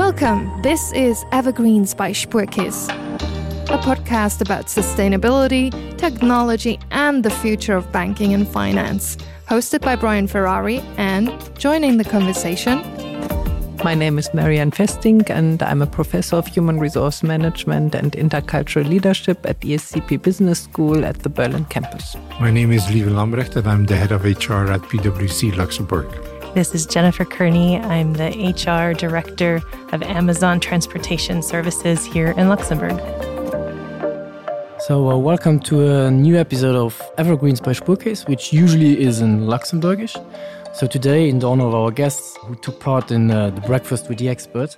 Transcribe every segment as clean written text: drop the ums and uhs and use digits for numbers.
Welcome. This is Evergreens by Spuerkeess, a podcast about sustainability, technology, and the future of banking and finance. Hosted by Brian Ferrari and joining the conversation. My name is Marianne Festing, and I'm a professor of human resource management and intercultural leadership at ESCP Business School at the Berlin campus. My name is Lieven Lambrecht, and I'm the head of HR at PwC Luxembourg. This is Jennifer Kearney. I'm the HR director of Amazon Transportation Services here in Luxembourg. So uh, welcome to a new episode of Evergreens by Spuerkeess, which usually is in Luxembourgish. So today, in the honor of our guests who took part in uh, the breakfast with the expert,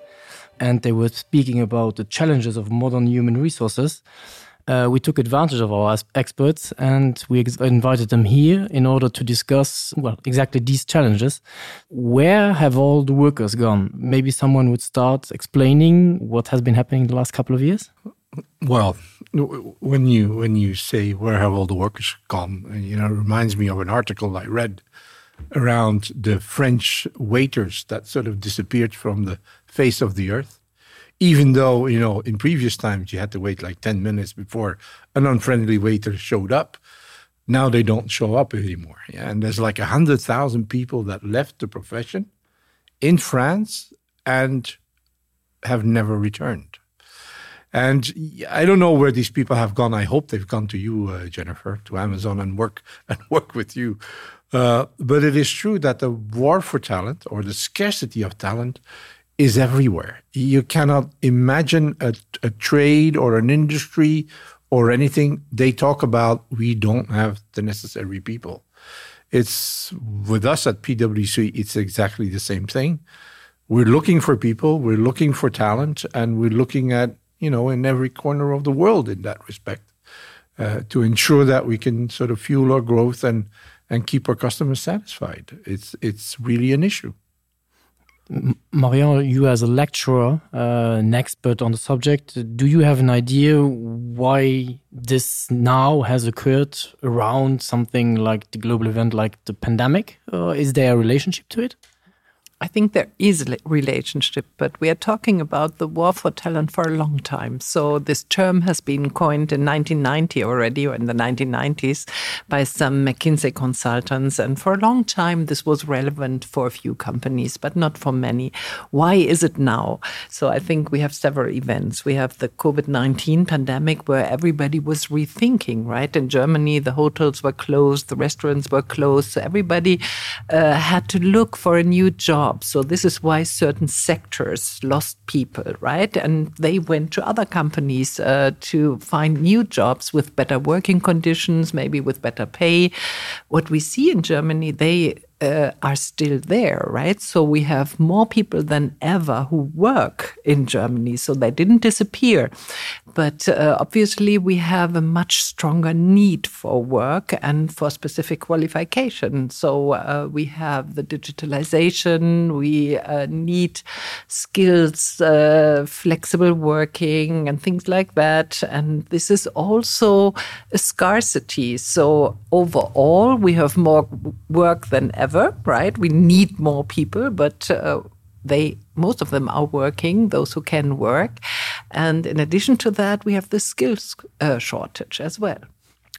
and they were speaking about the challenges of modern human resources, uh, we took advantage of our experts and we invited them here in order to discuss well exactly these challenges. Where have all the workers gone? Maybe someone would start explaining what has been happening in the last couple of years? Well, when you when you say where have all the workers gone, you know, it reminds me of an article I read around the French waiters that sort of disappeared from the face of the earth. Even though, you know, in previous times you had to wait like 10 minutes before an unfriendly waiter showed up. Now they don't show up anymore. Yeah? And there's like 100,000 people that left the profession in France and have never returned. And I don't know where these people have gone. I hope they've gone to you, uh, Jennifer, to Amazon and work and work with you. Uh, but it is true that the war for talent or the scarcity of talent is everywhere. You cannot imagine a, a trade or an industry or anything they talk about. We don't have the necessary people. It's with us at PwC, it's exactly the same thing. We're looking for people, we're looking for talent, and we're looking at you know, in every corner of the world in that respect, uh, to ensure that we can sort of fuel our growth and, and keep our customers satisfied. It's, it's really an issue. Marion, you as a lecturer, uh, an expert on the subject, do you have an idea why this now has occurred around something like the global event like the pandemic? Uh, is there a relationship to it? I think there is a relationship, but we are talking about the war for talent for a long time. So this term has been coined in 1990 already or in the 1990s by some McKinsey consultants. And for a long time, this was relevant for a few companies, but not for many. Why is it now? So I think we have several events. We have the COVID-19 pandemic where everybody was rethinking, right? In Germany, the hotels were closed, the restaurants were closed. So everybody uh, had to look for a new job jobs. So this is why certain sectors lost people, right? And they went to other companies uh, to find new jobs with better working conditions, maybe with better pay. What we see in Germany, they uh, are still there, right? So we have more people than ever who work in Germany, so they didn't disappear. But uh, obviously, we have a much stronger need for work and for specific qualification. So uh, we have the digitalization, we uh, need skills, uh, flexible working, and things like that. And this is also a scarcity. So overall, we have more work than ever, right? We need more people, but uh, they most of them are working, those who can work. And in addition to that, we have the skills uh, shortage as well.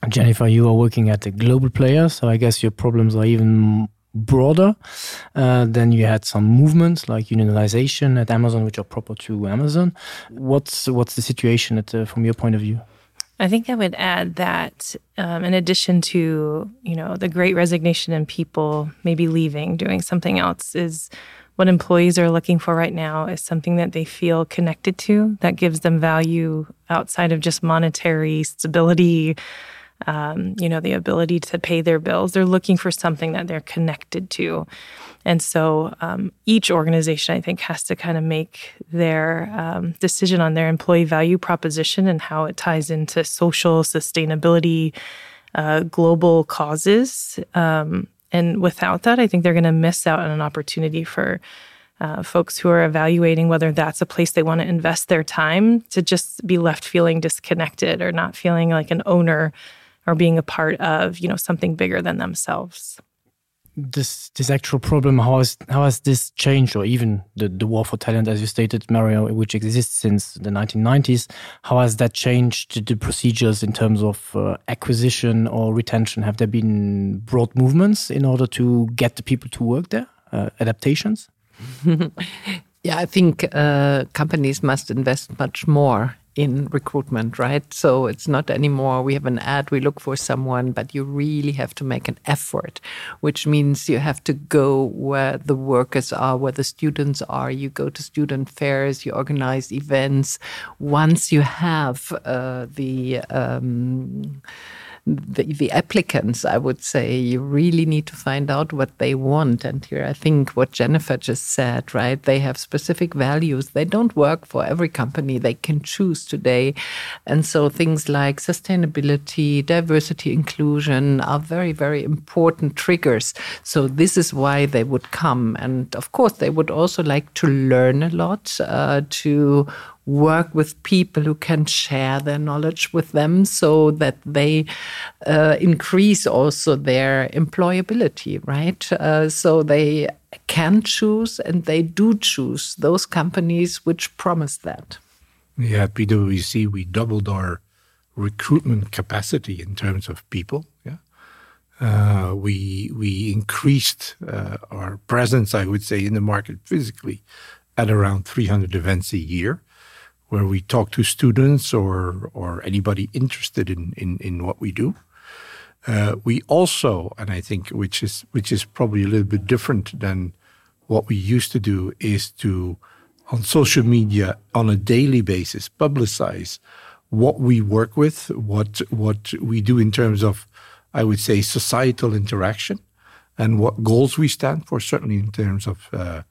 Jennifer, you are working at a global player, so I guess your problems are even broader. Uh, then you had some movements like unionization at Amazon, which are proper to Amazon. What's, what's the situation at, uh, from your point of view? I think I would add that um, in addition to you know the great resignation and people maybe leaving doing something else is what employees are looking for right now is something that they feel connected to that gives them value outside of just monetary stability um, you know the ability to pay their bills they're looking for something that they're connected to and so um, each organization I think has to kind of make their um, decision on their employee value proposition and how it ties into social sustainability uh, global causes um, and without that I think they're going to miss out on an opportunity for uh, folks who are evaluating whether that's a place they want to invest their time to just be left feeling disconnected or not feeling like an owner or being a part of you know something bigger than themselves. this this actual problem how has how has this changed or even the the war for talent as you stated Mario which exists since the 1990s how has that changed the procedures in terms of uh, acquisition or retention have there been broad movements in order to get the people to work there uh, adaptations yeah I think uh, companies must invest much more in recruitment, right? So it's not anymore we have an ad, we look for someone, but you really have to make an effort, which means you have to go where the workers are, where the students are. You go to student fairs, you organize events. Once you have uh, the um, the, the applicants, I would say you really need to find out what they want. And here I think what Jennifer just said, right? They have specific values. They don't work for every company they can choose today. And so things like sustainability, diversity, inclusion are very, very important triggers. So this is why they would come. And of course, they would also like to learn a lot, uh, to work with people who can share their knowledge with them so that they uh, increase also their employability, right? Uh, so they can choose and they do choose those companies which promise that. Yeah, at PwC, we doubled our recruitment capacity in terms of people. Yeah. Uh, we we increased uh, our presence, I would say, in the market physically at around 300 events a year where we talk to students or or anybody interested in in, in what we do. Uh, we also, and I think which is which is probably a little bit different than what we used to do, is to on social media on a daily basis publicize what we work with, what what we do in terms of, I would say, societal interaction, and what goals we stand for, certainly in terms of, uh,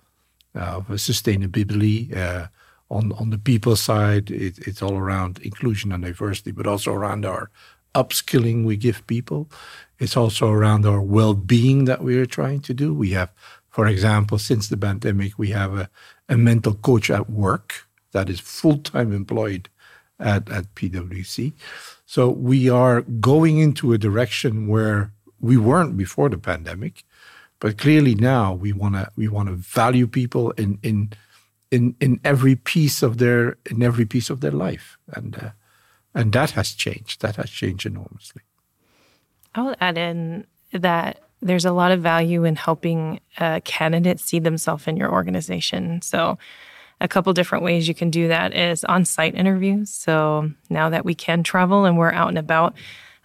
of sustainability. Uh, on on the people side, it, it's all around inclusion and diversity, but also around our upskilling we give people. It's also around our well-being that we are trying to do. We have, for example, since the pandemic, we have a, a mental coach at work that is full-time employed at, at PwC. So we are going into a direction where we weren't before the pandemic, but clearly now we want to we want to value people in in in in every piece of their in every piece of their life and uh, and that has changed that has changed enormously I'll add in that there's a lot of value in helping a candidate see themselves in your organization so a couple different ways you can do that is on-site interviews so now that we can travel and we're out and about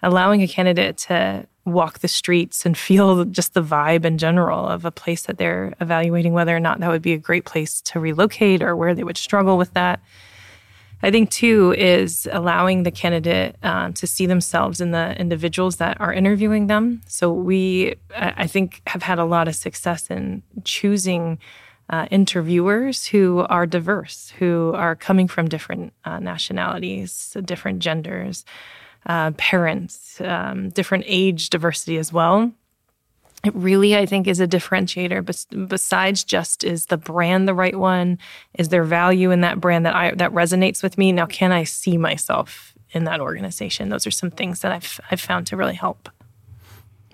allowing a candidate to walk the streets and feel just the vibe in general of a place that they're evaluating whether or not that would be a great place to relocate or where they would struggle with that. I think too is allowing the candidate um, to see themselves in the individuals that are interviewing them. So we, I think, have had a lot of success in choosing uh, interviewers who are diverse, who are coming from different uh, nationalities, different genders, uh, parents, um, different age diversity as well. It really, I think, is a differentiator. Bes besides just is the brand the right one? Is there value in that brand that I that resonates with me? Now, can I see myself in that organization? Those are some things that I've, I've found to really help.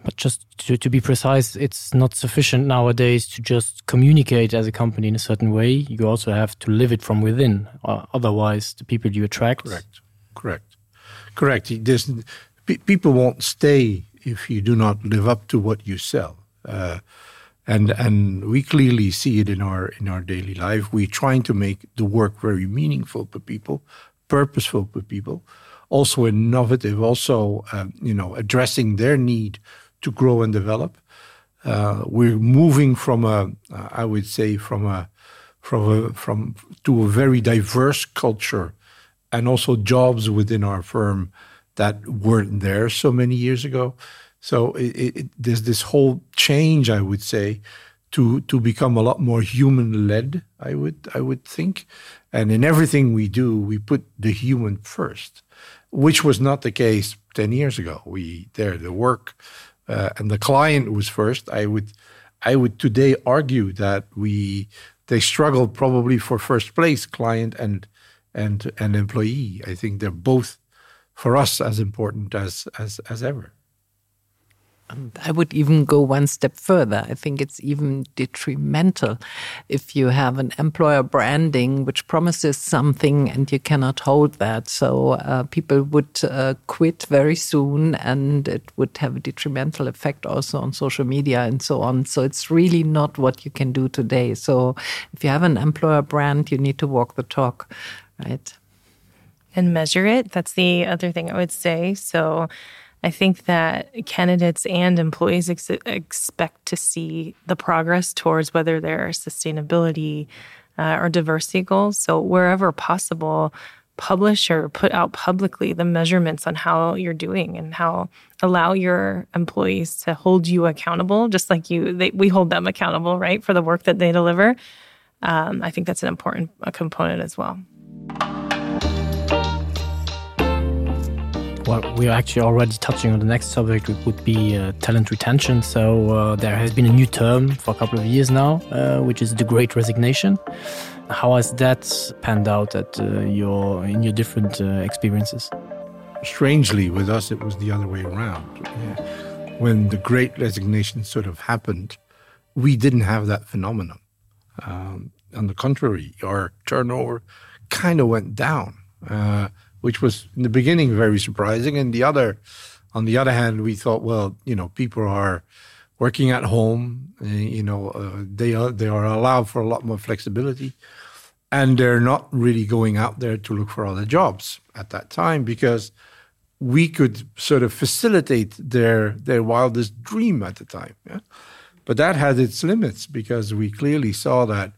But just to, to be precise, it's not sufficient nowadays to just communicate as a company in a certain way. You also have to live it from within. Uh, otherwise, the people you attract. Correct. Correct. Correct. There's, pe people won't stay if you do not live up to what you sell. Uh, and and we clearly see it in our in our daily life. We're trying to make the work very meaningful for people, purposeful for people, also innovative, also um, you know addressing their need to grow and develop. Uh, we're moving from a, uh, I would say, from a, from a, from to a very diverse culture, and also jobs within our firm that weren't there so many years ago. So it, it, there's this whole change, I would say, to to become a lot more human led. I would I would think, and in everything we do, we put the human first, which was not the case 10 years ago. We there the work uh, and the client was first. I would I would today argue that we they struggle probably for first place, client and and and employee. I think they're both for us as important as as as ever. And I would even go one step further. I think it's even detrimental if you have an employer branding which promises something and you cannot hold that. So uh, people would uh, quit very soon and it would have a detrimental effect also on social media and so on. So it's really not what you can do today. So if you have an employer brand, you need to walk the talk, right? And measure it. That's the other thing I would say. So I think that candidates and employees ex expect to see the progress towards whether their sustainability uh, or diversity goals. So wherever possible, publish or put out publicly the measurements on how you're doing and how allow your employees to hold you accountable, just like you they, we hold them accountable, right, for the work that they deliver. Um, I think that's an important a component as well. Well, we are actually already touching on the next subject, which would be uh, talent retention. So uh, there has been a new term for a couple of years now, uh, which is the Great Resignation. How has that panned out at uh, your in your different uh, experiences? Strangely, with us, it was the other way around. Yeah. When the Great Resignation sort of happened, we didn't have that phenomenon. Um, on the contrary, our turnover kind of went down. Uh, which was in the beginning very surprising. And the other, on the other hand, we thought, well, you know, people are working at home, eh, you know, uh, they are they are allowed for a lot more flexibility, and they're not really going out there to look for other jobs at that time because we could sort of facilitate their their wildest dream at the time. Yeah? But that had its limits because we clearly saw that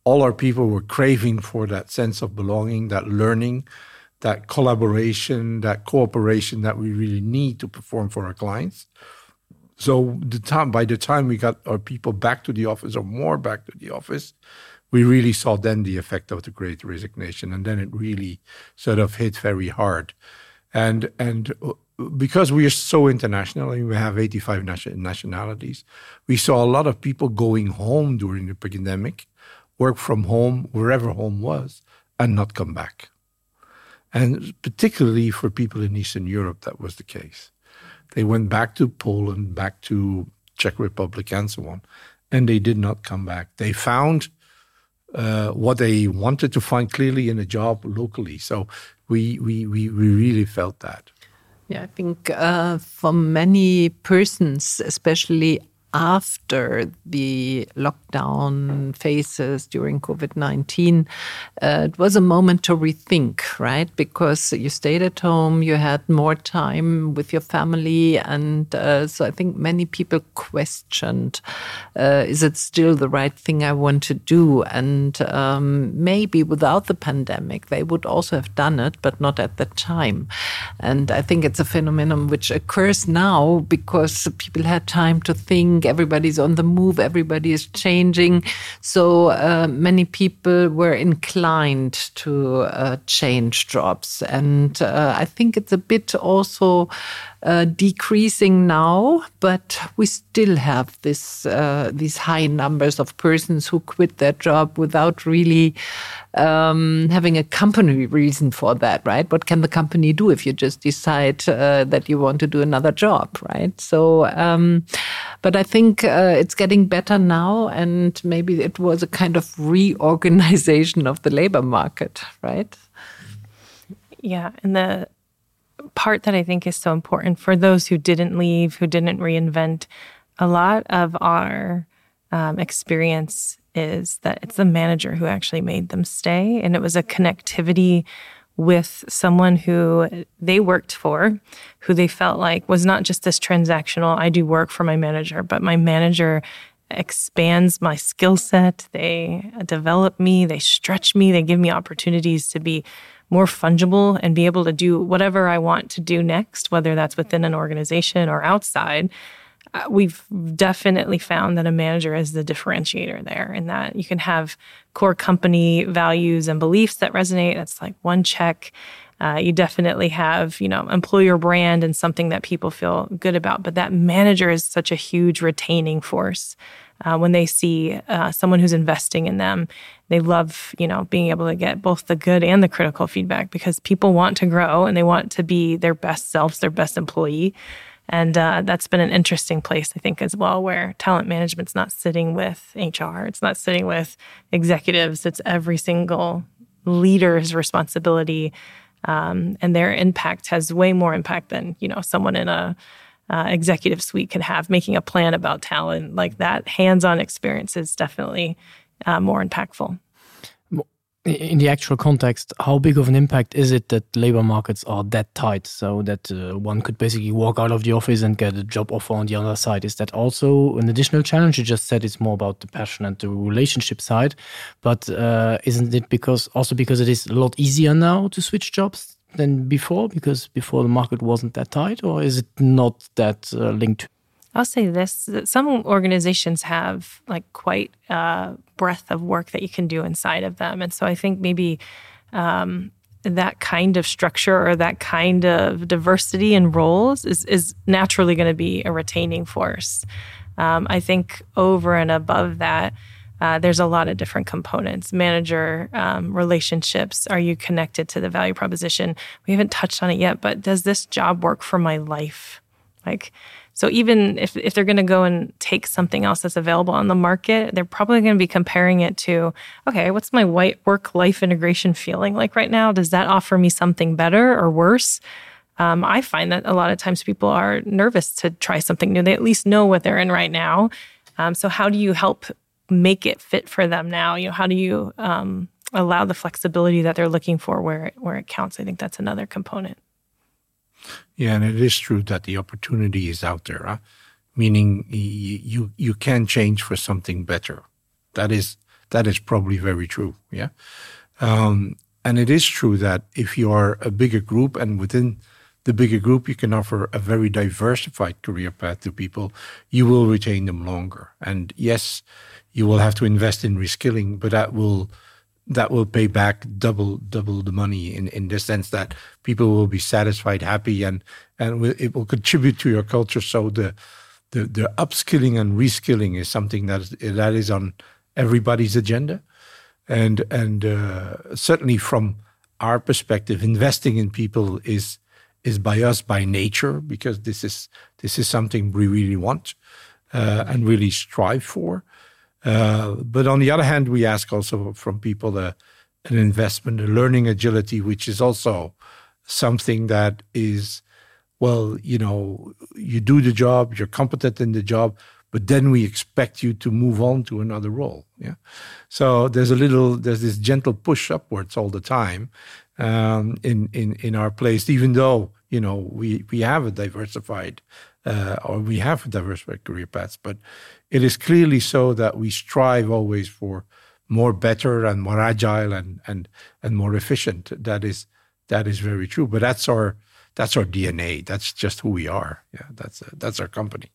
all our people were craving for that sense of belonging, that learning, that collaboration, that cooperation that we really need to perform for our clients. So the time by the time we got our people back to the office or more back to the office, we really saw then the effect of the great resignation and then it really sort of hit very hard. And and uh, because we are so international and we have 85 nation nationalities, we saw a lot of people going home during the pandemic, work from home wherever home was and not come back. And particularly for people in Eastern Europe, that was the case. They went back to Poland, back to Czech Republic and so on, and they did not come back. They found uh, what they wanted to find clearly in a job locally. So we, we, we, we really felt that. Yeah, I think uh, for many persons, especially after the lockdown phases during COVID-19, uh, it was a moment to rethink, right? Because you stayed at home, you had more time with your family. And uh, so I think many people questioned, uh, is it still the right thing I want to do? And um, maybe without the pandemic, they would also have done it, but not at the time. And I think it's a phenomenon which occurs now because people had time to think, everybody's on the move, everybody is changing. So uh, many people were inclined to uh, change jobs. And uh, I think it's a bit also uh, decreasing now, but we still have this uh, these high numbers of persons who quit their job without really um, having a company reason for that, right? What can the company do if you just decide uh, that you want to do another job, right? So, um, but I think uh, it's getting better now, and maybe it was a kind of reorganization of the labor market, right? Yeah, and the part that I think is so important for those who didn't leave, who didn't reinvent, a lot of our um, experience is that it's the manager who actually made them stay. And it was a connectivity with someone who they worked for, who they felt like was not just this transactional, I do work for my manager, but my manager expands my skill set. They develop me, they stretch me, they give me opportunities to be more fungible and be able to do whatever I want to do next, whether that's within an organization or outside. Uh, we've definitely found that a manager is the differentiator there and that you can have core company values and beliefs that resonate. That's like one check. Uh, you definitely have, you know, employer brand and something that people feel good about. But that manager is such a huge retaining force. Uh, when they see uh, someone who's investing in them, they love, you know, being able to get both the good and the critical feedback because people want to grow and they want to be their best selves, their best employee. And uh, that's been an interesting place, I think, as well, where talent management's not sitting with HR, it's not sitting with executives, it's every single leader's responsibility. Um, and their impact has way more impact than you know someone in a uh, executive suite could have making a plan about talent like that hands-on experience is definitely uh, more impactful in the actual context, how big of an impact is it that labor markets are that tight so that uh, one could basically walk out of the office and get a job offer on the other side? Is that also an additional challenge? You just said it's more about the passion and the relationship side, but uh, isn't it because also because it is a lot easier now to switch jobs than before because before the market wasn't that tight or is it not that uh, linked? I'll say this that some organizations have like quite a breadth of work that you can do inside of them. And so I think maybe um, that kind of structure or that kind of diversity in roles is, is naturally going to be a retaining force. Um, I think over and above that, uh, there's a lot of different components manager um, relationships are you connected to the value proposition we haven't touched on it yet but does this job work for my life like so even if, if they're going to go and take something else that's available on the market they're probably going to be comparing it to okay what's my white work life integration feeling like right now does that offer me something better or worse um, I find that a lot of times people are nervous to try something new they at least know what they're in right now um, so how do you help make it fit for them now you know how do you um, allow the flexibility that they're looking for where it, where it counts I think that's another component yeah and it is true that the opportunity is out there huh? meaning you you can change for something better that is that is probably very true yeah um, and it is true that if you are a bigger group and within the bigger group you can offer a very diversified career path to people you will retain them longer and yes you will have to invest in reskilling but that will that will pay back double double the money in in the sense that people will be satisfied happy and and it will contribute to your culture so the the, the upskilling and reskilling is something that is, that is on everybody's agenda and and uh, certainly from our perspective investing in people is is by us by nature because this is this is something we really want uh, and really strive for uh, but on the other hand we ask also from people uh, an investment a learning agility which is also something that is well you know you do the job you're competent in the job but then we expect you to move on to another role yeah so there's a little there's this gentle push upwards all the time um in in in our place even though you know we we have a diversified uh or we have diversified career paths but it is clearly so that we strive always for more better and more agile and and and more efficient that is that is very true but that's our that's our DNA that's just who we are yeah that's uh, that's our company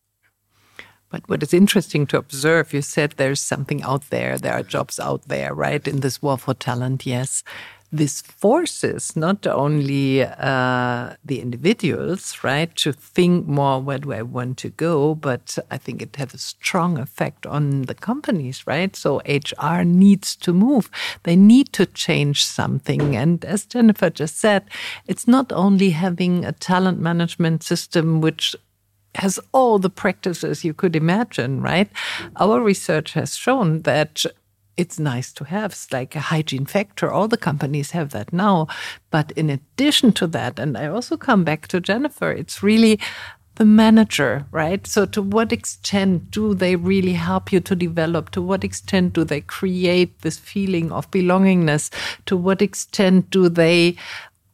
But what is interesting to observe, you said there's something out there, there are jobs out there, right? In this war for talent, yes this forces not only uh, the individuals right to think more where do I want to go, but I think it has a strong effect on the companies, right? So HR needs to move. They need to change something. And as Jennifer just said, it's not only having a talent management system which has all the practices you could imagine, right? Our research has shown that it's nice to have it's like a hygiene factor all the companies have that now but in addition to that and I also come back to Jennifer it's really the manager right so to what extent do they really help you to develop to what extent do they create this feeling of belongingness to what extent do they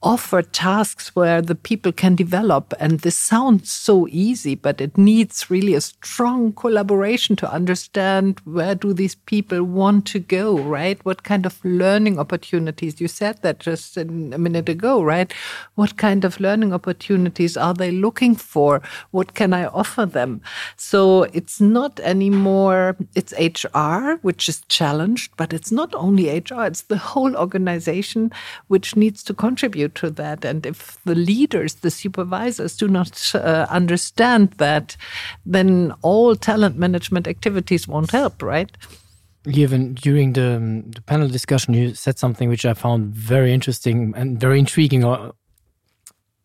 offer tasks where the people can develop and this sounds so easy but it needs really a strong collaboration to understand where do these people want to go right what kind of learning opportunities you said that just a minute ago right what kind of learning opportunities are they looking for what can I offer them so it's not anymore it's HR which is challenged but it's not only HR it's the whole organization which needs to contribute to that and if the leaders the supervisors do not uh, understand that then all talent management activities won't help right Given during the, um, the panel discussion you said something which I found very interesting and very intriguing or uh,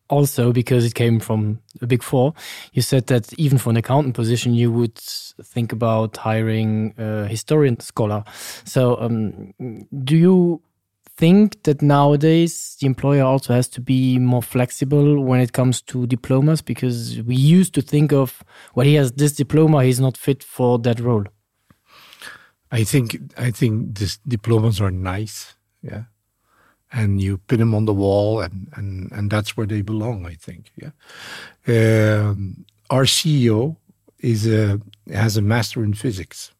also because it came from a big four, you said that even for an accountant position, you would think about hiring a historian scholar. So um, do you think that nowadays the employer also has to be more flexible when it comes to diplomas because we used to think of well he has this diploma he's not fit for that role I think I think this diplomas are nice yeah and you pin them on the wall and and and that's where they belong I think yeah um, our CEO is a has a master in physics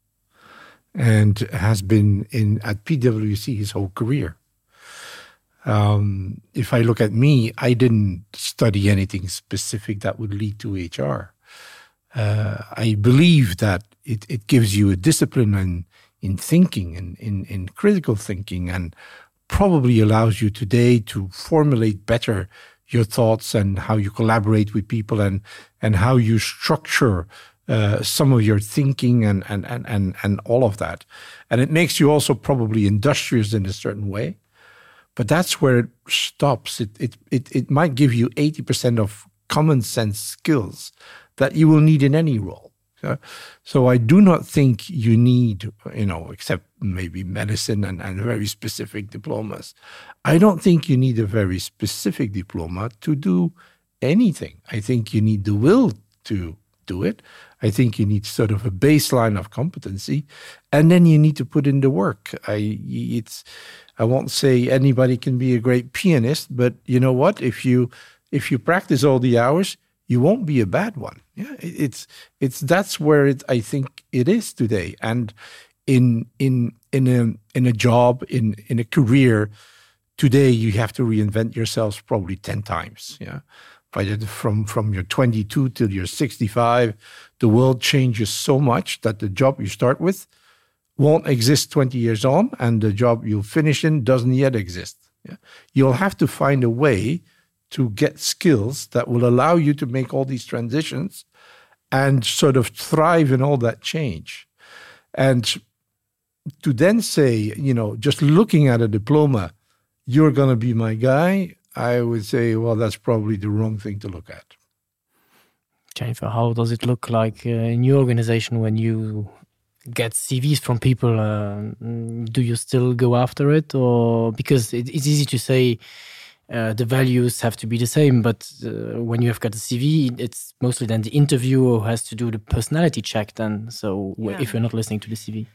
and has been in at PwC his whole career. Um, if I look at me, I didn't study anything specific that would lead to HR. Uh, I believe that it, it gives you a discipline in, in thinking and in, in critical thinking and probably allows you today to formulate better your thoughts and how you collaborate with people and, and how you structure uh, some of your thinking and, and, and, and, and all of that. And it makes you also probably industrious in a certain way. But that's where it stops. It, it, it, it might give you 80% of common sense skills that you will need in any role. So, so I do not think you need, you know, except maybe medicine and, and very specific diplomas. I don't think you need a very specific diploma to do anything. I think you need the will to do it. I think you need sort of a baseline of competency, and then you need to put in the work. I it's I won't say anybody can be a great pianist, but you know what? If you if you practice all the hours, you won't be a bad one. Yeah, it's it's that's where it I think it is today. And in in in a in a job in in a career today, you have to reinvent yourselves probably 10 times. Yeah by the, from from your 22 till you're 65 the world changes so much that the job you start with won't exist 20 years on and the job you'll finish in doesn't yet exist yeah? you'll have to find a way to get skills that will allow you to make all these transitions and sort of thrive in all that change and to then say you know just looking at a diploma you're going to be my guy I would say, well, that's probably the wrong thing to look at. Jennifer, how does it look like uh, in your organization when you get CVs from people? Uh, do you still go after it? Or because it, it's easy to say uh, the values have to be the same, but uh, when you have got a CV, it's mostly then the interviewer who has to do the personality check then. So yeah. if you're not listening to the CV.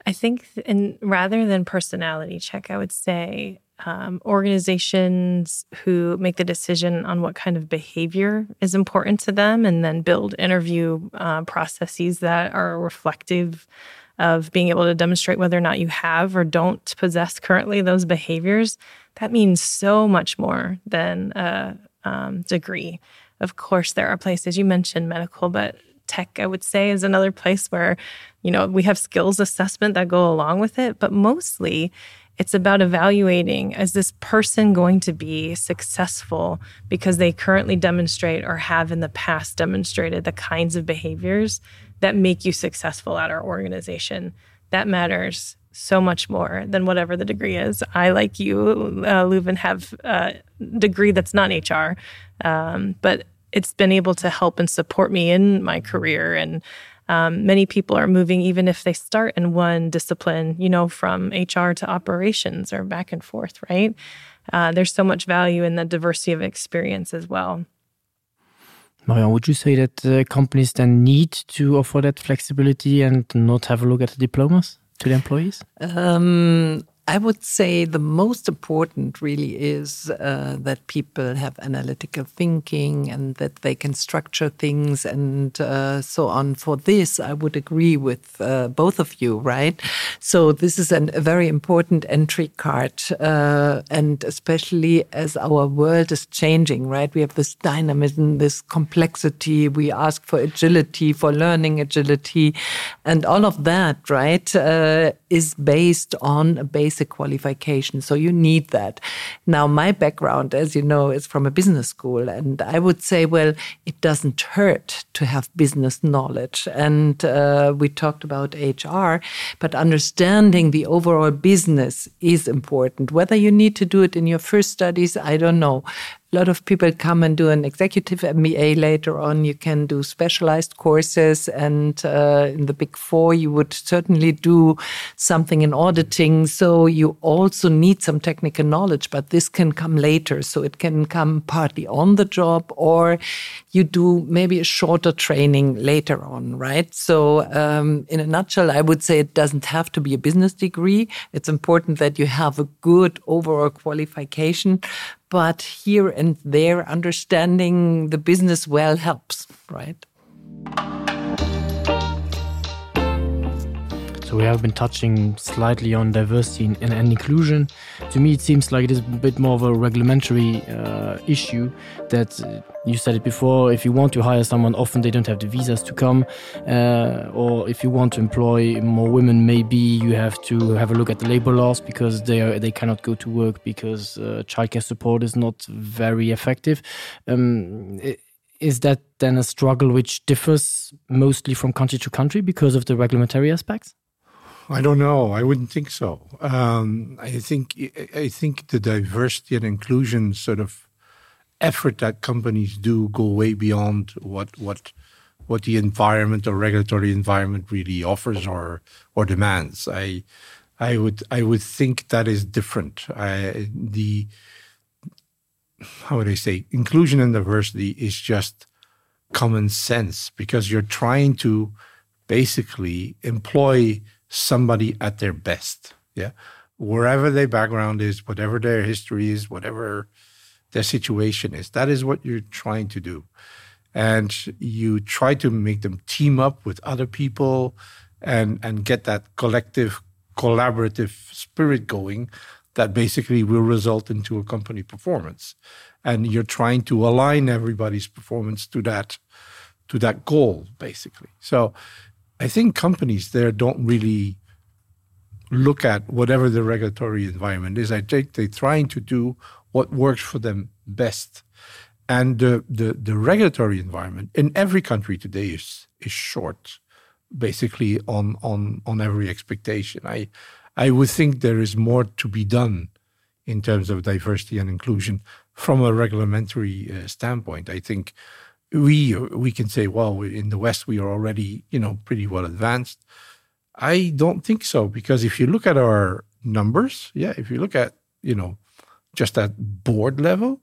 I think in, rather than personality check, I would say um, organizations who make the decision on what kind of behavior is important to them and then build interview uh, processes that are reflective of being able to demonstrate whether or not you have or don't possess currently those behaviors, that means so much more than a um, degree. Of course, there are places you mentioned medical, but tech, I would say, is another place where, you know, we have skills assessment that go along with it, but mostly it's about evaluating is this person going to be successful because they currently demonstrate or have in the past demonstrated the kinds of behaviors that make you successful at our organization. That matters so much more than whatever the degree is. I, like you, uh, Leuven, have a degree that's not HR, um, but it's been able to help and support me in my career and um, many people are moving even if they start in one discipline, you know, from HR to operations or back and forth, right? Uh, there's so much value in the diversity of experience as well. Marion, would you say that uh, companies then need to offer that flexibility and not have a look at the diplomas to the employees? Um, I would say the most important really is uh, that people have analytical thinking and that they can structure things and uh, so on. For this, I would agree with uh, both of you, right? So this is an, a very important entry card, uh, and especially as our world is changing, right? We have this dynamism, this complexity. We ask for agility, for learning agility, and all of that, right, uh, is based on a basic basic qualification. So you need that. Now, my background, as you know, is from a business school. And I would say, well, it doesn't hurt to have business knowledge. And uh, we talked about HR, but understanding the overall business is important. Whether you need to do it in your first studies, I don't know. A lot of people come and do an executive MBA later on. You can do specialized courses, and uh, in the big four, you would certainly do something in auditing. So you also need some technical knowledge, but this can come later. So it can come partly on the job, or you do maybe a shorter training later on, right? So um, in a nutshell, I would say it doesn't have to be a business degree. It's important that you have a good overall qualification, but here and there understanding the business well helps, right? So we have been touching slightly on diversity and, and inclusion. To me, it seems like it is a bit more of a regulatory uh, issue that uh, you said it before, if you want to hire someone, often they don't have the visas to come. Uh, or if you want to employ more women, maybe you have to have a look at the labor laws because they, are, they cannot go to work because uh, childcare support is not very effective. Um, is that then a struggle which differs mostly from country to country because of the regulatory aspects? I don't know. I wouldn't think so. Um, I think I think the diversity and inclusion sort of effort that companies do go way beyond what what what the environment or regulatory environment really offers or or demands. I I would I would think that is different. I, the how would I say inclusion and diversity is just common sense because you're trying to basically employ somebody at their best. Yeah. Wherever their background is, whatever their history is, whatever their situation is, that is what you're trying to do. And you try to make them team up with other people and, and get that collective, collaborative spirit going that basically will result into a company performance. And you're trying to align everybody's performance to that to that goal, basically. So I think companies there don't really look at whatever the regulatory environment is. I think they're trying to do what works for them best. And the, the, the regulatory environment in every country today is, is short, basically on, on, on every expectation. I, I would think there is more to be done in terms of diversity and inclusion from a regulatory uh, standpoint. I think we we can say, well, in the West we are already you know pretty well advanced. I don't think so because if you look at our numbers, yeah, if you look at you know just at board level,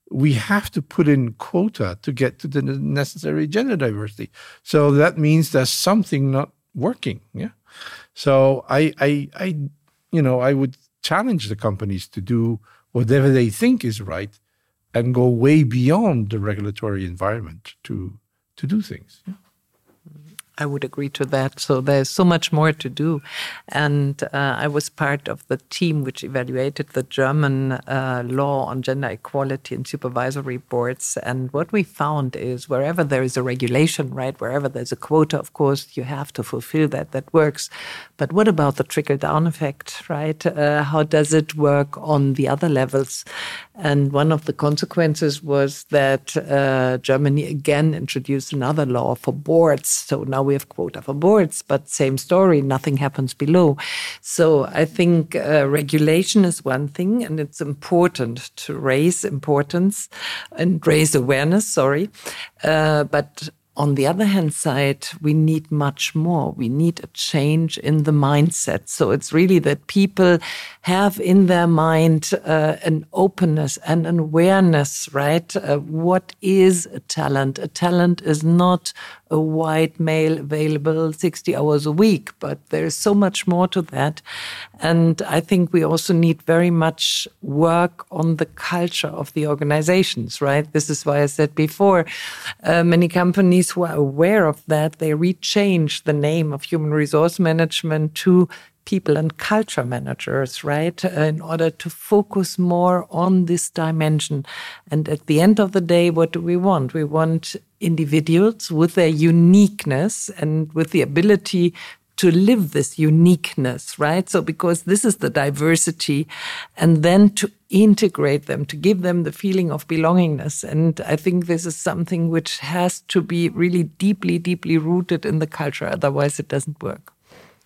we have to put in quota to get to the necessary gender diversity. So that means there's something not working. Yeah. So I I I you know I would challenge the companies to do whatever they think is right and go way beyond the regulatory environment to to do things. Yeah. I would agree to that. So there's so much more to do. And uh, I was part of the team which evaluated the German uh, law on gender equality in supervisory boards. And what we found is wherever there is a regulation, right, wherever there's a quota, of course, you have to fulfill that. That works. But what about the trickle down effect, right? Uh, how does it work on the other levels? And one of the consequences was that uh, Germany again introduced another law for boards. So now we have quota for boards, but same story, nothing happens below. So I think uh, regulation is one thing, and it's important to raise importance and raise awareness, sorry. Uh, but on the other hand side, we need much more. We need a change in the mindset. So it's really that people have in their mind uh, an openness and an awareness, right? Uh, what is a talent? A talent is not a white male available 60 hours a week, but there's so much more to that. And I think we also need very much work on the culture of the organizations, right? This is why I said before, uh, many companies who are aware of that, they rechange the name of human resource management to people and culture managers, right? Uh, in order to focus more on this dimension. And at the end of the day, what do we want? We want individuals with their uniqueness and with the ability to live this uniqueness, right? So because this is the diversity and then to integrate them, to give them the feeling of belongingness. And I think this is something which has to be really deeply, deeply rooted in the culture. Otherwise it doesn't work.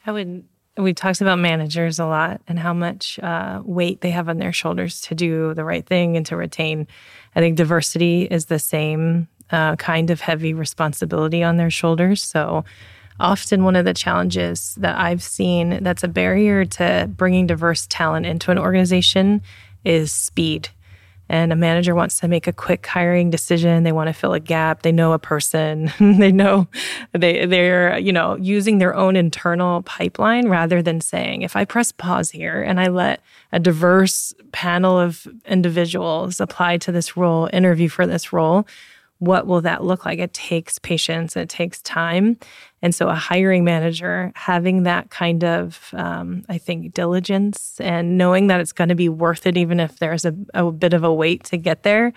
I would We talked about managers a lot and how much uh, weight they have on their shoulders to do the right thing and to retain. I think diversity is the same uh, kind of heavy responsibility on their shoulders. So often one of the challenges that I've seen that's a barrier to bringing diverse talent into an organization is speed and a manager wants to make a quick hiring decision they want to fill a gap they know a person they know they they're you know using their own internal pipeline rather than saying if I press pause here and I let a diverse panel of individuals apply to this role interview for this role what will that look like it takes patience it takes time and so a hiring manager having that kind of um, I think diligence and knowing that it's going to be worth it even if there's a, a bit of a wait to get there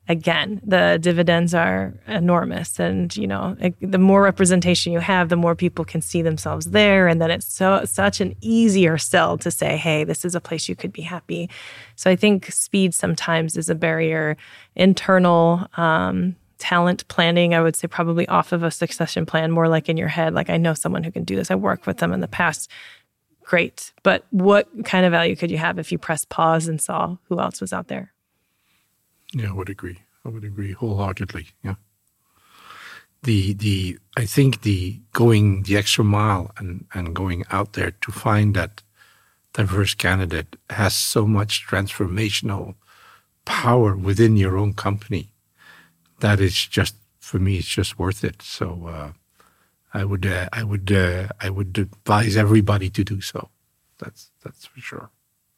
again the dividends are enormous and you know it, the more representation you have the more people can see themselves there and then it's so such an easier sell to say hey this is a place you could be happy so I think speed sometimes is a barrier internal um, talent planning I would say probably off of a succession plan more like in your head like I know someone who can do this I worked with them in the past great but what kind of value could you have if you press pause and saw who else was out there yeah I would agree I would agree wholeheartedly yeah the the I think the going the extra mile and and going out there to find that diverse candidate has so much transformational power within your own company that it's just for me it's just worth it so uh, I would uh, I would uh, I would advise everybody to do so that's that's for sure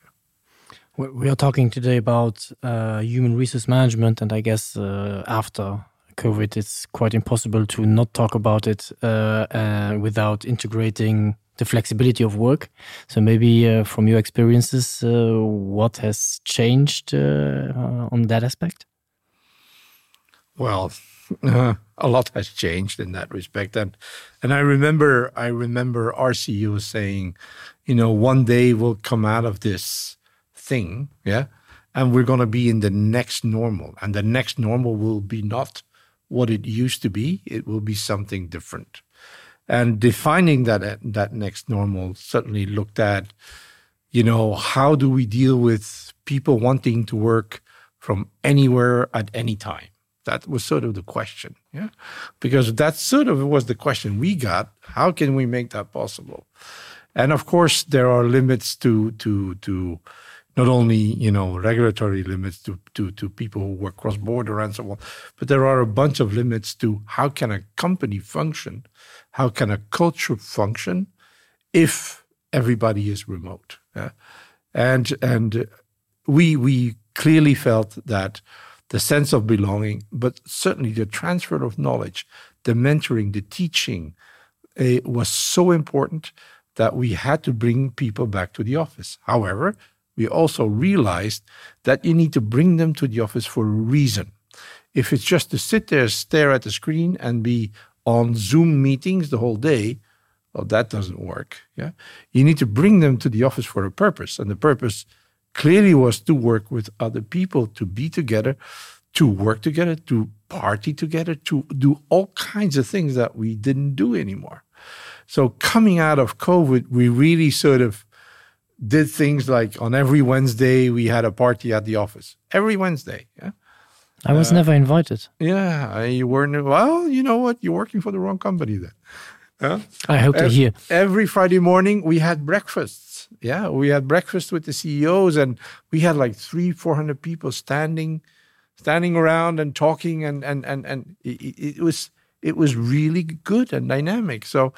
yeah. We are talking today about uh, human resource management and I guess uh, after COVID it's quite impossible to not talk about it uh, uh, without integrating the flexibility of work. So maybe uh, from your experiences, uh, what has changed uh, uh, on that aspect? Well, uh, a lot has changed in that respect. And, and I remember I remember RCU saying, you know, one day we'll come out of this thing, yeah, and we're going to be in the next normal. And the next normal will be not what it used to be, it will be something different. And defining that that next normal certainly looked at, you know, how do we deal with people wanting to work from anywhere at any time? That was sort of the question, yeah, because that sort of was the question we got. How can we make that possible? And of course, there are limits to to to not only you know regulatory limits to to to people who work cross border and so on, but there are a bunch of limits to how can a company function, how can a culture function if everybody is remote. Yeah? And and we we clearly felt that the sense of belonging, but certainly the transfer of knowledge, the mentoring, the teaching uh, was so important that we had to bring people back to the office. However, we also realized that you need to bring them to the office for a reason. If it's just to sit there, stare at the screen and be on Zoom meetings the whole day, well, that doesn't work. Yeah, you need to bring them to the office for a purpose, and the purpose clearly was to work with other people, to be together, to work together, to party together, to do all kinds of things that we didn't do anymore. So coming out of COVID, we really sort of did things like on every Wednesday we had a party at the office. Every Wednesday, yeah. I was uh, never invited. Yeah, you weren't. Well, you know what? You're working for the wrong company then. Yeah? I hope to hear. Every Friday morning we had breakfasts. Yeah, we had breakfast with the CEOs and we had like 3 400 people standing standing around and talking and and and and it, it was it was really good and dynamic. So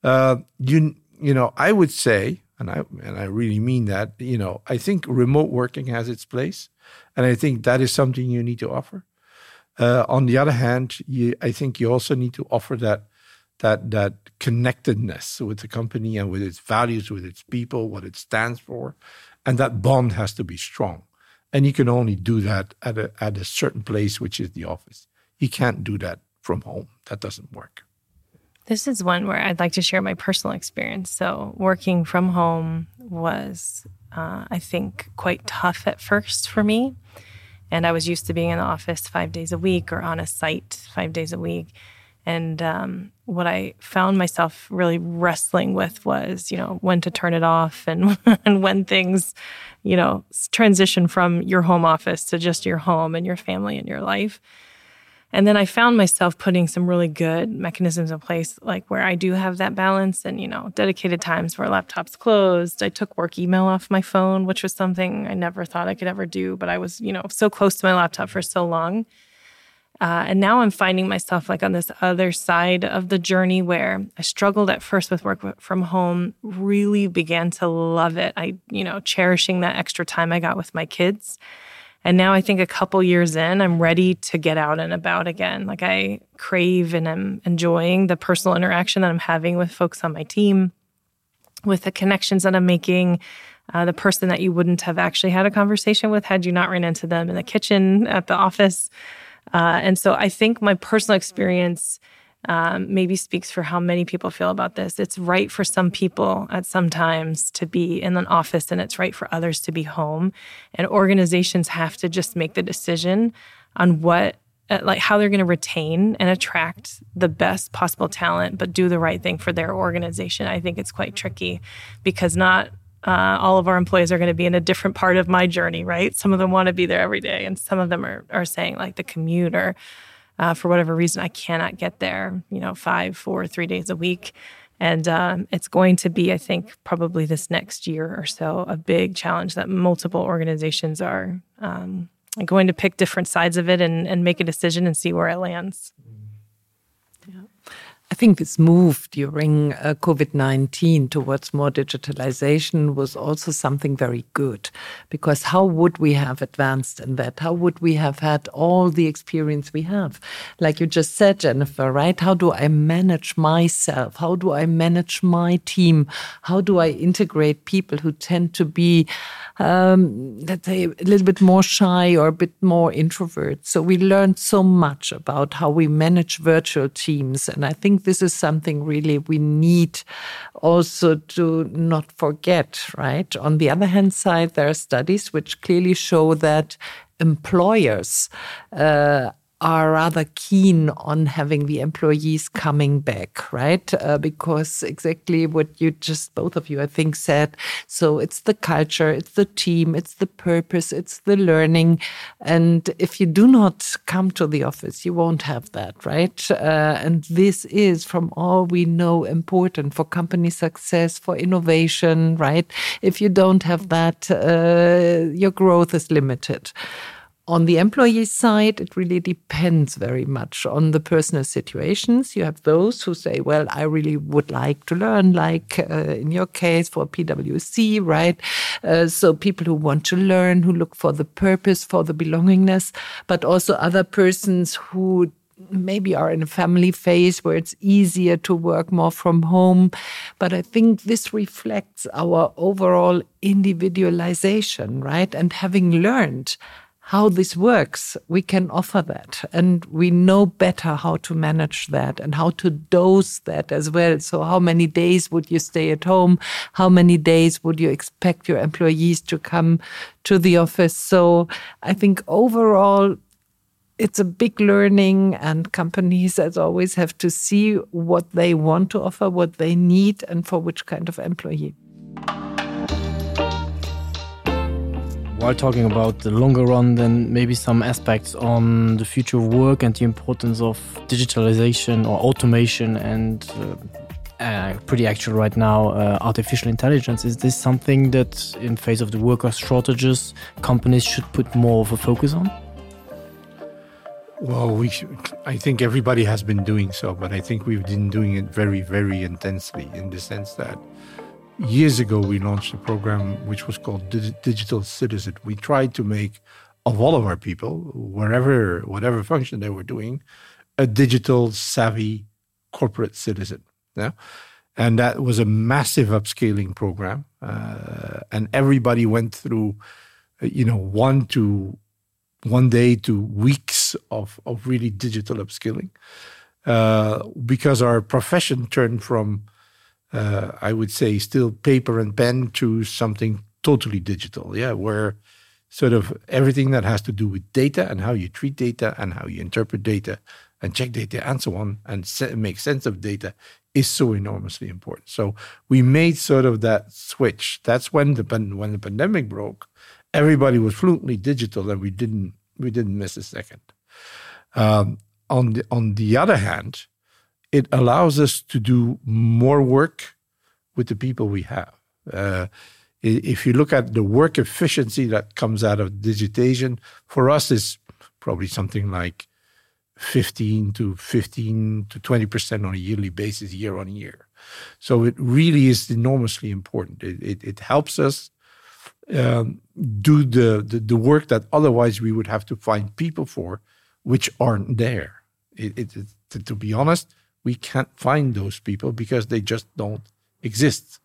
uh, you you know, I would say and I and I really mean that, you know, I think remote working has its place and I think that is something you need to offer. Uh, on the other hand, you, I think you also need to offer that that that connectedness with the company and with its values, with its people, what it stands for, and that bond has to be strong. And you can only do that at a, at a certain place, which is the office. You can't do that from home. That doesn't work. This is one where I'd like to share my personal experience. So working from home was, uh, I think, quite tough at first for me. And I was used to being in the office five days a week or on a site five days a week. And um, what I found myself really wrestling with was, you know, when to turn it off and, and when things, you know, transition from your home office to just your home and your family and your life. And then I found myself putting some really good mechanisms in place, like where I do have that balance and, you know, dedicated times where laptop's closed. I took work email off my phone, which was something I never thought I could ever do, but I was, you know, so close to my laptop for so long. Uh, and now I'm finding myself like on this other side of the journey where I struggled at first with work from home, really began to love it. I, you know, cherishing that extra time I got with my kids. And now I think a couple years in, I'm ready to get out and about again. Like I crave and I'm enjoying the personal interaction that I'm having with folks on my team, with the connections that I'm making, uh, the person that you wouldn't have actually had a conversation with had you not ran into them in the kitchen at the office. Uh, and so I think my personal experience um, maybe speaks for how many people feel about this. It's right for some people at some times to be in an office, and it's right for others to be home. And organizations have to just make the decision on what uh, like how they're going to retain and attract the best possible talent, but do the right thing for their organization. I think it's quite tricky because not uh, all of our employees are going to be in a different part of my journey, right? Some of them want to be there every day, and some of them are, are saying, like, the commute or uh, for whatever reason, I cannot get there, you know, five, four, three days a week. And um, it's going to be, I think, probably this next year or so, a big challenge that multiple organizations are um, going to pick different sides of it and, and make a decision and see where it lands. Yeah. I think this move during uh, COVID-19 towards more digitalization was also something very good because how would we have advanced in that? How would we have had all the experience we have? Like you just said, Jennifer, right? How do I manage myself? How do I manage my team? How do I integrate people who tend to be, um, let's say, a little bit more shy or a bit more introvert? So we learned so much about how we manage virtual teams. And I think this is something really we need also to not forget, right? On the other hand side, there are studies which clearly show that employers uh, are rather keen on having the employees coming back, right? Uh, because exactly what you just both of you, I think, said. So it's the culture, it's the team, it's the purpose, it's the learning. And if you do not come to the office, you won't have that, right? Uh, and this is, from all we know, important for company success, for innovation, right? If you don't have that, uh, your growth is limited. On the employee side, it really depends very much on the personal situations. You have those who say, well, I really would like to learn, like uh, in your case for PwC, right? Uh, so people who want to learn, who look for the purpose, for the belongingness, but also other persons who maybe are in a family phase where it's easier to work more from home. But I think this reflects our overall individualization, right? And having learned how this works, we can offer that. And we know better how to manage that and how to dose that as well. So how many days would you stay at home? How many days would you expect your employees to come to the office? So I think overall, it's a big learning and companies as always have to see what they want to offer, what they need and for which kind of employee. While talking about the longer run, then maybe some aspects on the future of work and the importance of digitalization or automation and uh, uh, pretty actual right now uh, artificial intelligence. Is this something that in face of the worker shortages companies should put more of a focus on? Well, we I think everybody has been doing so, but I think we've been doing it very, very intensely in the sense that years ago we launched a program which was called Digital Citizen. We tried to make of all of our people, wherever whatever function they were doing, a digital savvy corporate citizen. Yeah. And that was a massive upscaling program. Uh, and everybody went through, uh, you know, one to one day to weeks of, of really digital upskilling uh, because our profession turned from, uh, I would say, still paper and pen to something totally digital. Yeah, where sort of everything that has to do with data and how you treat data and how you interpret data and check data and so on and make sense of data is so enormously important. So we made sort of that switch. That's when the when the pandemic broke, everybody was fluently digital and we didn't we didn't miss a second. Um, on the on the other hand, it allows us to do more work with the people we have. Uh, if you look at the work efficiency that comes out of digitization, for us is probably something like 15 to 15 to 20% on a yearly basis, year on year. So it really is enormously important. It, it, it helps us um, do the, the, the work that otherwise we would have to find people for, which aren't there. It, it, it, to, to be honest, we can't find those people because they just don't exist.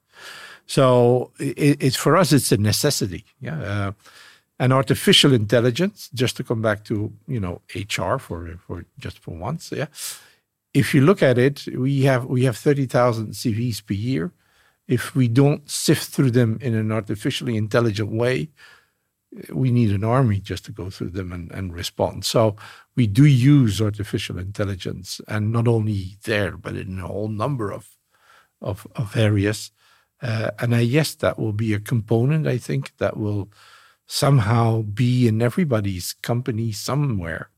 So it, it's for us, it's a necessity. Yeah. Uh, and artificial intelligence, just to come back to you know HR for for just for once, yeah. If you look at it, we have we have 30,000 CVs per year. If we don't sift through them in an artificially intelligent way, we need an army just to go through them and, and respond. So we do use artificial intelligence, and not only there, but in a whole number of of, of areas. Uh, and I, yes, that will be a component, I think, that will somehow be in everybody's company somewhere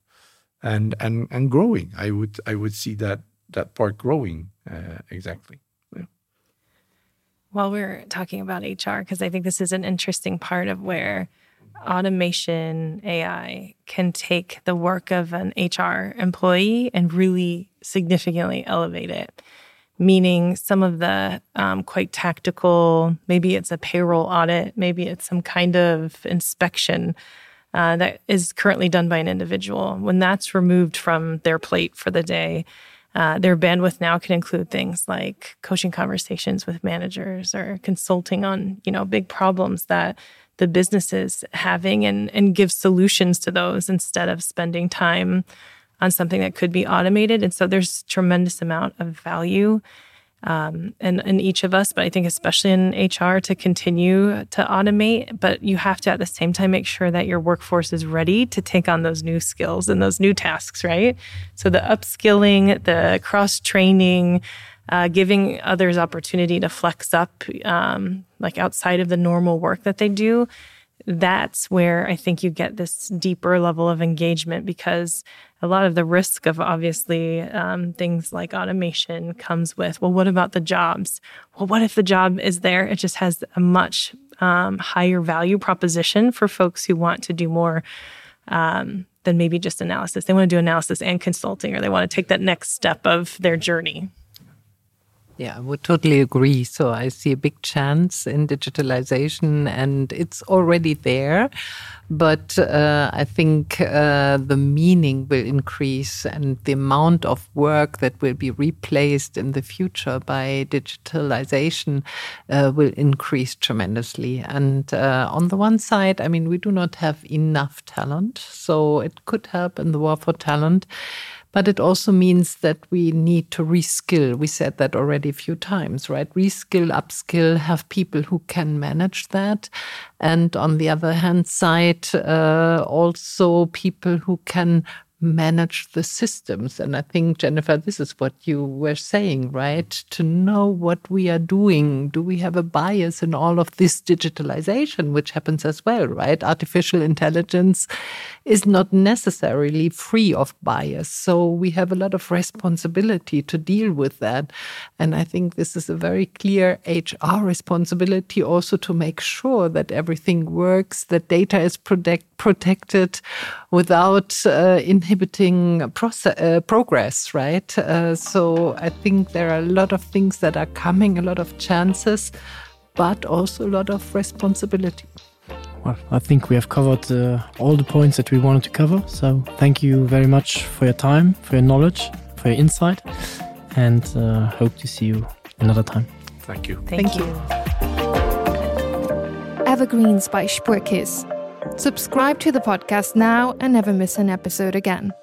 and and and growing. I would I would see that that part growing uh, exactly. Yeah. While we're talking about HR, because I think this is an interesting part of where automation AI can take the work of an HR employee and really significantly elevate it meaning some of the um, quite tactical, maybe it's a payroll audit, maybe it's some kind of inspection uh, that is currently done by an individual. When that's removed from their plate for the day, uh, their bandwidth now can include things like coaching conversations with managers or consulting on, you know, big problems that the business is having and, and give solutions to those instead of spending time on something that could be automated. And so there's tremendous amount of value um, in, in each of us, but I think especially in HR to continue to automate. But you have to at the same time make sure that your workforce is ready to take on those new skills and those new tasks, right? So the upskilling, the cross training, uh, giving others opportunity to flex up, um, like outside of the normal work that they do that's where I think you get this deeper level of engagement because a lot of the risk of obviously um, things like automation comes with, well, what about the jobs? Well, what if the job is there? It just has a much um, higher value proposition for folks who want to do more um, than maybe just analysis. They want to do analysis and consulting, or they want to take that next step of their journey. Yeah, I would totally agree. So I see a big chance in digitalization and it's already there. But uh, I think uh, the meaning will increase and the amount of work that will be replaced in the future by digitalization uh, will increase tremendously. And uh, on the one side, I mean, we do not have enough talent, so it could help in the war for talent. But it also means that we need to reskill. We said that already a few times, right? Reskill, upskill, have people who can manage that. And on the other hand side, uh, also people who can manage the systems. And I think, Jennifer, this is what you were saying, right? To know what we are doing. Do we have a bias in all of this digitalization, which happens as well, right? Artificial intelligence is not necessarily free of bias. So we have a lot of responsibility to deal with that. And I think this is a very clear HR responsibility also to make sure that everything works, that data is protect, protected without uh, inhibiting process, uh, progress, right? Uh, so I think there are a lot of things that are coming, a lot of chances, but also a lot of responsibility. Well, I think we have covered uh, all the points that we wanted to cover. So thank you very much for your time, for your knowledge, for your insight, and uh, hope to see you another time. Thank you. Thank, thank you. you. Evergreens by Spuerkeess. Subscribe to the podcast now and never miss an episode again.